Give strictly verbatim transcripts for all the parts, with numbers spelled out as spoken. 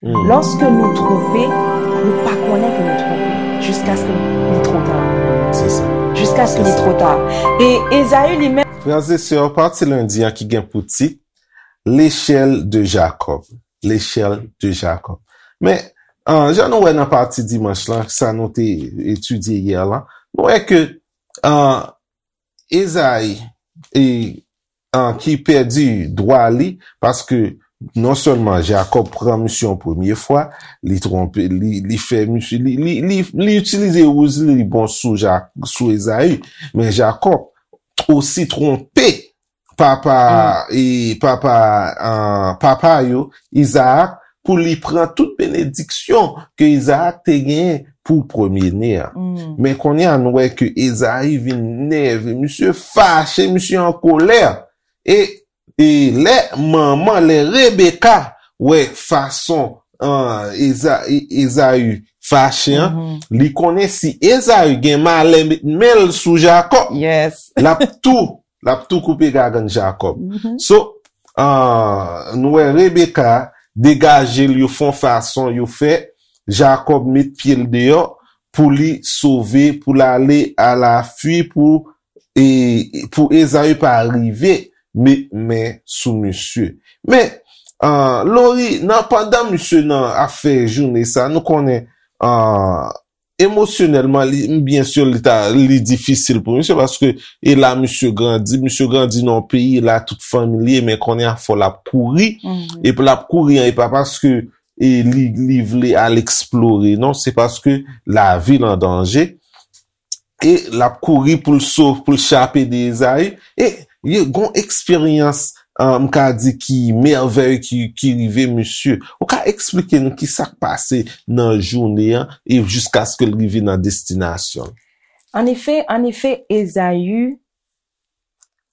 Lòske nou twonpe, nou pa konnen ke nou twonpe, jiskaske li twò ta. Se sa. Jiskaske li twò ta. E Ezayi li menm. Frè e sè, pati lendi an ki gen pou tit L'échelle de Jacob. L'échelle de Jacob. Men, an, jan nou wè nan pati dimanch lan, sa nou te etidye yè lan, nou wè ke, an, Ezayi, e, an, ki pèdi dwa li, paske non sèlman Jakòb pran misye yon premye fwa, li twonpe, li, li fè misye, li, li, li, li itilize wouz li, li bon sou Ja-, sou Ezayi, men Jakòb osi twonpe papa, e, papa, an, papa yo, Izaak, pou li pran tout benediksyon ke Izaak te genyen pou premye ne an. Men kounye a, nou wè ke Ezayi vin nève, misye fache, misye an kolè. E, e lè manman, lè Rebeka wè fason, an, Eza-, E-, Ezayi fache an, li konnen si Ezayi gen malè met men l sou Jakòb, l ap tou, l ap tou koupe gagann Jakòb. So, an, nou wè Rebeka degaje l, yo fè yon fason, yo fè Jakòb met pye l deyò pou li sove, pou l ale alafui, pou, e, pou Ezayi pa rive met men sou misye. Men, an, Lori, nan, pandan misye nan ap fè jounen sa, nou konnen, an, emosyonèlman, li, byen si, li ta, li difisil pou misye, paske e la misye grandi, misye grandi nan yon peyi, e la tout fanmi li ye, men kounye a fò l ap kouri, epi l ap kouri an, e pa paske e li, li vle al eksplore, non, se paske lavi l an danje, e l ap kouri pou l sov-, pou l chape de Ezayi, e, e gon eksperyans, an, m ka di ki mèvèy ki, ki rive misye. Ou ka eksplike nou ki sa k pase nan jounen an e jiskaske l rive nan destinasyon l? Anefè, anefè, Ezayi,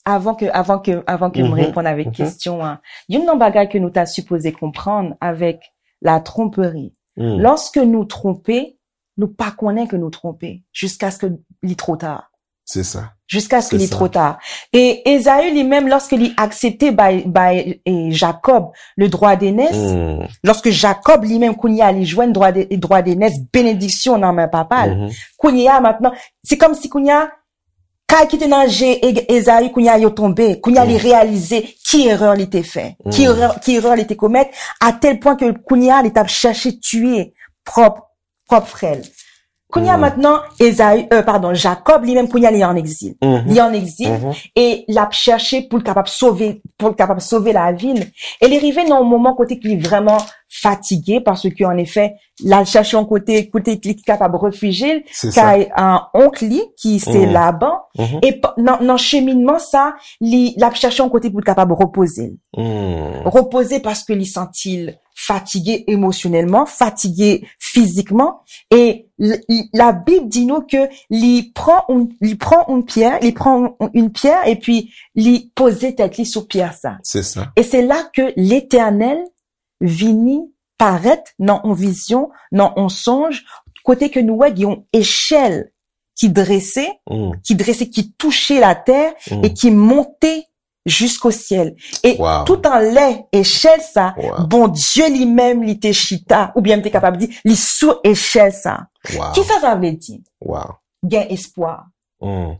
avan ke, avan ke, avan ke m reponn avèk kesyon an, youn nan bagay ke nou ta sipoze konprann avèk la tromperie, lòske nou twonpe, nou pa konnen ke nou twonpe, jiskaske li twò ta. Se sa. Jiskaske li twò ta. E Ezayi li menm, lòske li aksepte bay, bay, e, Jakòb le droit d'aînesse, lòske Jakòb li menm kounye a li jwenn droit de, droit d'aînesse, benediksyon nan men papa l. Kounye a mentnan, se kòmsi kounye a, kay ki te nan je E-, Ezayi, kounye a yo tonbe. Kounye a li reyalize ki erè li te fè, ki erè, ki erè li te komèt, a tèl pwen ke kounye a li t ap chèche tiye pwòp, pwòp frè l. Kounye a mentnan, Ezayi, e, padon, Jakòb li menm kounye a li an egzil. Li an egzil e l ap chèche pou l kapab sove, pou l kapab sove lavi l. E li rive nan yon moman kote ke li vrèman fatige, paske anefè, l al chèche yon kote, kote li kapab refijye l, kay, e, onk li, ki se Laban. E p-, nan, nan cheminman sa, li, l ap chèche yon kote pou l kapab repoze l. Repoze paske li santi l fatige emosyonèlman, fatige fizikman. E l-, l-, Labib di nou ke li pran yon, li pran yon pyè, li pran yon, yon pyè, epi li poze tèt li sou pyè sa. Se sa. E se la ke Letènèl vini parèt nan yon vizyon, nan yon sonj, kote ke nou wè gen yon echèl ki drese, ki drese, ki touche latè e ki monte jisko syèl. E tout anlè echèl sa, Bondye li menm li te chita, oubyen m te kapab di, li sou echèl sa. Kisa sa vle di? Gen espwa.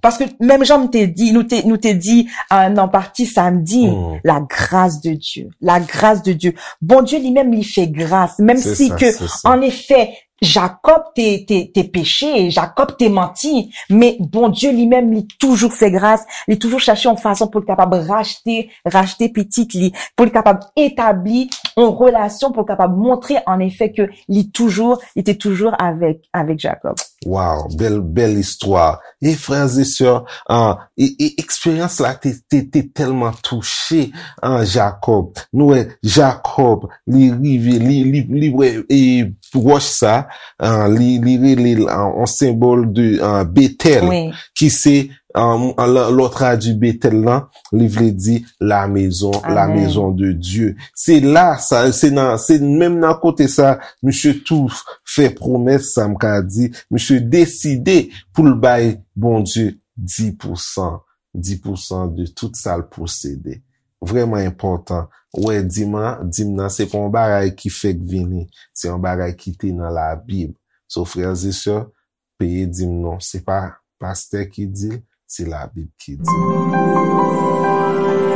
Paske menm jan m te di, nou te, nou te di, e, nan pati samdi, la grâce de Dieu, la grâce de Dieu. Bondye li menm li fè gras, menm si ke, anefè, Jakòb te, te, te peche, Jakòb te manti, men Bondye li menm li toujou fè gras, li toujou chèche yon fason pou l kapab rachte, rachte pitit li, pou l kapab etabli yon relasyon, pou l kapab montre anefè ke li toujou, li te toujou avèk, avèk Jakòb. Wow, bèl, bèl istwa. E frè e sè, an, e, e eksperyans la te, te, te tèlman touche, an, Jakòb. Nou wè, Jakòb, li rive, li, li, li wè, e, wòch sa, an, li, li rele l, an, yon senbòl de, an, Betèl, ki se, an, an, lè, lè w tradui Betèl lan, li vle di la maison, la maison de Dieu. Se la, sa, se nan, se menm nan kote sa, misye tou fè pwomès sa, m ka di, misye deside pou l bay Bondye dis pou san, dis pou san de tout sa l posede. vrèman enpòtan. Ou wè, dim nan, dim nan, se pa yon bagay ki fèk vini. Se yon bagay ki te nan Labib. So, frères et sœurs, peye dim nou. Se pa pastè ki di l, se Labib ki di l.